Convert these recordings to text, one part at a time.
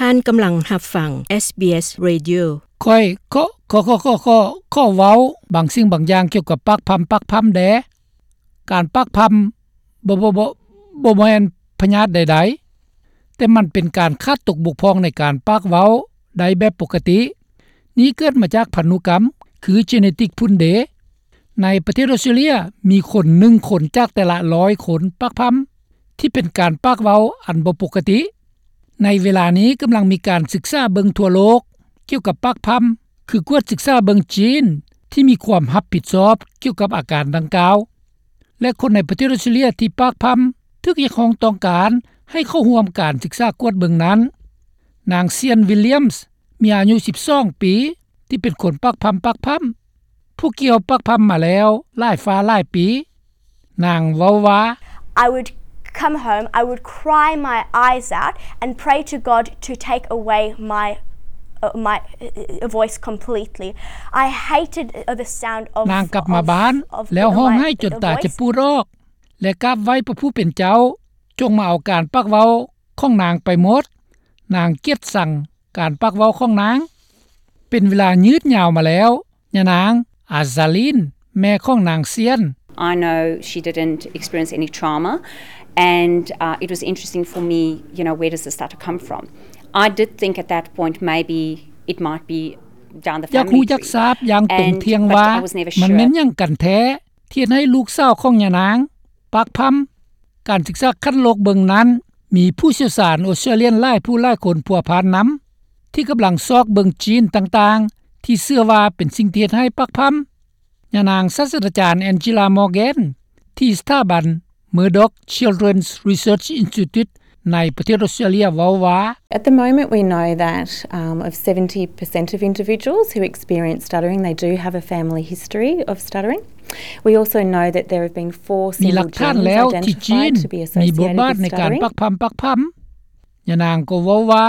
ທ່ານກຳລັງຮັບຟັງ ເອສບີເອສ Radio. ຂ້ອຍ ຂໍ ຂໍ ຂໍ ຂໍ ຂໍ ຂໍເວົ້າບາງສິ່ງບາງຢ່າງກ່ຽວກັບປາກພຳ ປາກພຳແດ່. ການປາກພຳບໍ່ ບໍ່ ບໍ່ ບໍ່ແມ່ນພະຍາດໃດໆ, ແຕ່ມັນເປັນການຂາດຕົກບົກຜ່ອງໃນການປາກເວົ້າໄດ້ແບບປົກກະຕິ. ນີ້ເກີດມາຈາກພັນທຸກຳ ຄື genetic ພຸ້ນເດ. ໃນປະເທດອອສເຕຣເລຍ ມີຄົນໜຶ່ງຄົນຈາກແຕ່ລະຮ້ອຍຄົນປາກພຳ ທີ່ເປັນການປາກເວົ້າອັນບໍ່ປົກກະຕິ. ໃນເວລານີ້ກຳລັງມີການສຶກສາເບິ່ງທົ່ວໂລກກ່ຽວກັບປາກພຳ ຄືກວດສຶກສາເບິ່ງຈີນທີ່ມີຄວາມຮັບຜິດຊອບກ່ຽວກັບອາການດັ່ງກ່າວ ແລະ ຄົນໃນປະເທດອອສເຕຣເລຍທີ່ປາກພຳ ຖືກຮຽກຮ້ອງຕ້ອງການໃຫ້ເຂົ້າຮ່ວມການສຶກສາກວດເບິ່ງນັ້ນ. ນາງ Sian Williams ມີອາຍຸສິບສອງປີ ທີ່ເປັນຄົນປາກພຳ ປາກພຳ ຜູ້ກ່ຽວປາກພຳມາແລ້ວຫຼາຍຟ້າຫຼາຍປີ. ນາງເວົ້າວ່າ I would come home, I would cry my eyes out and pray to God to take away my, uh, my, uh, voice completely. I hated, uh, the sound of, ນາງກັບມາບ້ານ of, of ແລ້ວຮ້ອງໄຫ້ຈົນຕາຈະປູດອອກ ແລະ ກາບໄຫວ້ພະຜູ້ເປັນເຈົ້າ ຈົ່ງມາເອົາການປາກເວົ້າຂອງນາງໄປໝົດ. ນາງກຽດຊັງການປາກເວົ້າຂອງນາງ. ເປັນເວລາຍືດຍາວມາແລ້ວ, ຍານາງ Azalin ແມ່ຂອງນາງ Sian. I know she didn't experience any trauma, and, uh, it was interesting for me, you know, where does this stutter come from? I did think at that point maybe it might be down the family tree. ຢາກຮູ້ຢາກຊາບຢ່າງຕົງທ່ຽງວ່າ ມັນແມ່ນຫຍັງກັນແທ້ ທີ່ເຮັດໃຫ້ລູກສາວຂອງຍານາງປາກພຳ. ການສຶກສາຂັ້ນໂລກເບິ່ງນັ້ນ ມີຜູ້ຊ່ຽວຊານອອສເຕຣເລຍນຫຼາຍຜູ້ຫຼາຍຄົນພົວພັນນຳ ທີ່ກຳລັງຊອກເບິ່ງຈີນຕ່າງໆ ທີ່ເຊື່ອວ່າເປັນສິ່ງທີ່ເຮັດໃຫ້ປາກພຳ. ຍານາງສາດສະດາຈານ Angela Morgan ທີ່ສະຖາບັນ Murdoch Children's Research Institute ໃນປະເທດອອສເຕຣເລຍເວົ້າວ່າ At the moment, we know that, um, of seventy percent of individuals who experience stuttering, they do have a family history of stuttering. We also know that there have been four single genes identified to be associated with stuttering. ມີຫຼັກຖານແລ້ວທີ່ຈີນມີບົດບາດໃນການປາກພຳ ປາກພຳ. ຍານາງກໍເວົ້າວ່າ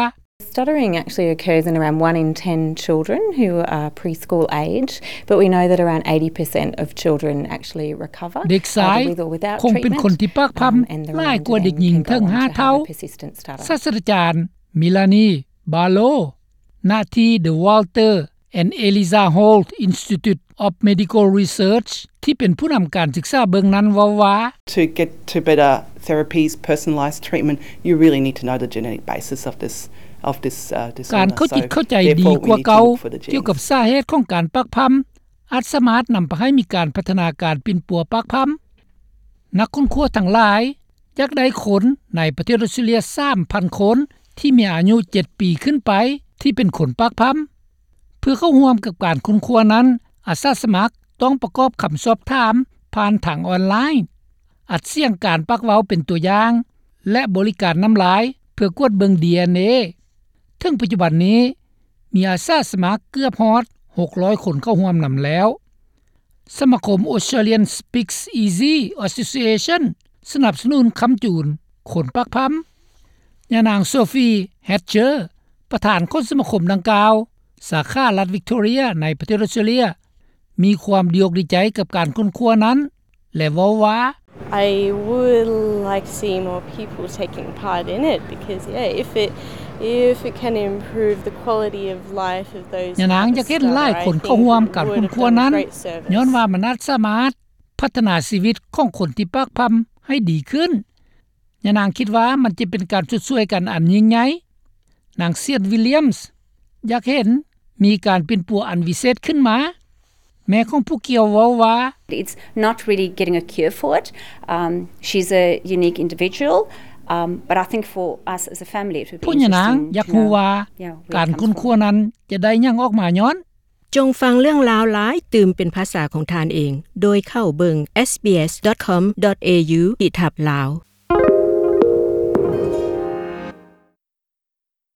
Stuttering actually occurs in around one in ten children who are preschool age, but we know that around eighty percent of children actually recover, either with or without treatment, um, and the remainder then can go on to have a persistent stutter. ເດັກຊາຍຄົງເປັນຄົນທີ່ປາກພຳຫຼາຍກວ່າເດັກຍິງເຖິງຫ້າເທົ່າ. ສາດສະດາຈານ Melanie Barlow ນະທີ່ The Walter and Eliza Hall Institute of Medical Research ທີ່ເປັນຜູ້ນຳການສຶກສາເບິ່ງນັ້ນເວົ້າວ່າ To get to better therapies, personalized treatment, you really need to know the genetic basis of this, of this, uh, disorder. ການເຂົ້າຈິດເຂົ້າໃຈດີກວ່າເກົ່າກ່ຽວກັບສາເຫດຂອງການປາກພຳ ອາດສາມາດນຳພາໃຫ້ມີການພັດທະນາການປິ່ນປົວປາກພຳ. ນັກຄົ້ນຄວ້າທັງຫຼາຍຢາກໄດ້ຄົນໃນປະເທດອອສເຕຣເລຍສາມພັນຄົນ ທີ່ມີອາຍຸເຈັດປີຂຶ້ນໄປ ທີ່ເປັນຄົນປາກພຳ. ເພື່ອເຂົ້າຮ່ວມກັບການຄົ້ນຄວ້ານັ້ນ, ອາສາສະໝັກຕ້ອງປະກອບຄຳສອບຖາມຜ່ານທາງອອນລາຍ, ອັດສຽງການປາກເວົ້າເປັນຕົວຢ່າງ ແລະ ບໍລິການນ້ຳລາຍເພື່ອກວດເບິ່ງ ດີເອັນເອ. ເຖິງປັດຈຸບັນນີ້, ມີອາສາສະໝັກເກືອບຮອດຫົກຮ້ອຍຄົນເຂົ້າຮ່ວມນຳແລ້ວ. ສະມາຄົມ Australian Speaks Easy Association ສະໜັບສະໜູນຄ້ຳຈູນຄົນປາກພຳ. ຍານາງ Sophie Hatcher ປະທານຂອງສະມາຄົມດັ່ງກ່າວ ສາຂາລັດ Victoria ໃນປະເທດອອສເຕຣເລຍ ມີຄວາມດີອົກດີໃຈກັບການຄົ້ນຄວ້ານັ້ນ ແລະ ເວົ້າວ່າ I would like to see more people taking part in it because, yeah, if it, if it can improve the quality of life of those who have a stutter, I think it would, um, greatly improve the quality of life of those who have a stutter. ຍານາງຢາກເຫັນຫຼາຍຄົນເຂົ້າຮ່ວມການຄົ້ນຄວ້ານັ້ນ, ຍ້ອນວ່າມັນອາດສາມາດພັດທະນາຊີວິດຂອງຄົນທີ່ປາກພຳໃຫ້ດີຂຶ້ນ. ຍານາງຄິດວ່າມັນຈະເປັນການຊົດຊ່ວຍກັນອັນຍິ່ງໃຫຍ່. ນາງ Sian Williams ຢາກເຫັນມີການປິ່ນປົວອັນວິເສດຂຶ້ນມາ. ແມ່ຂອງຜູ້ກ່ຽວເວົ້າວ່າ It's not really getting a cure for it. Um, she's a unique individual, um, but I think for us as a family, it would be interesting to know, yeah, where it comes from. ພວກຍານາງຢາກຮູ້ວ່າການຄົ້ນຄວ້ານັ້ນຈະໄດ້ຫຍັງອອກມາຍ້ອນ. ຈົ່ງຟັງເລື່ອງລາວຫຼາຍຕື່ມເປັນພາສາຂອງທ່ານເອງ ໂດຍເຂົ້າເບິ່ງ SBS dot com dot au ທີ່ທັບລາວ.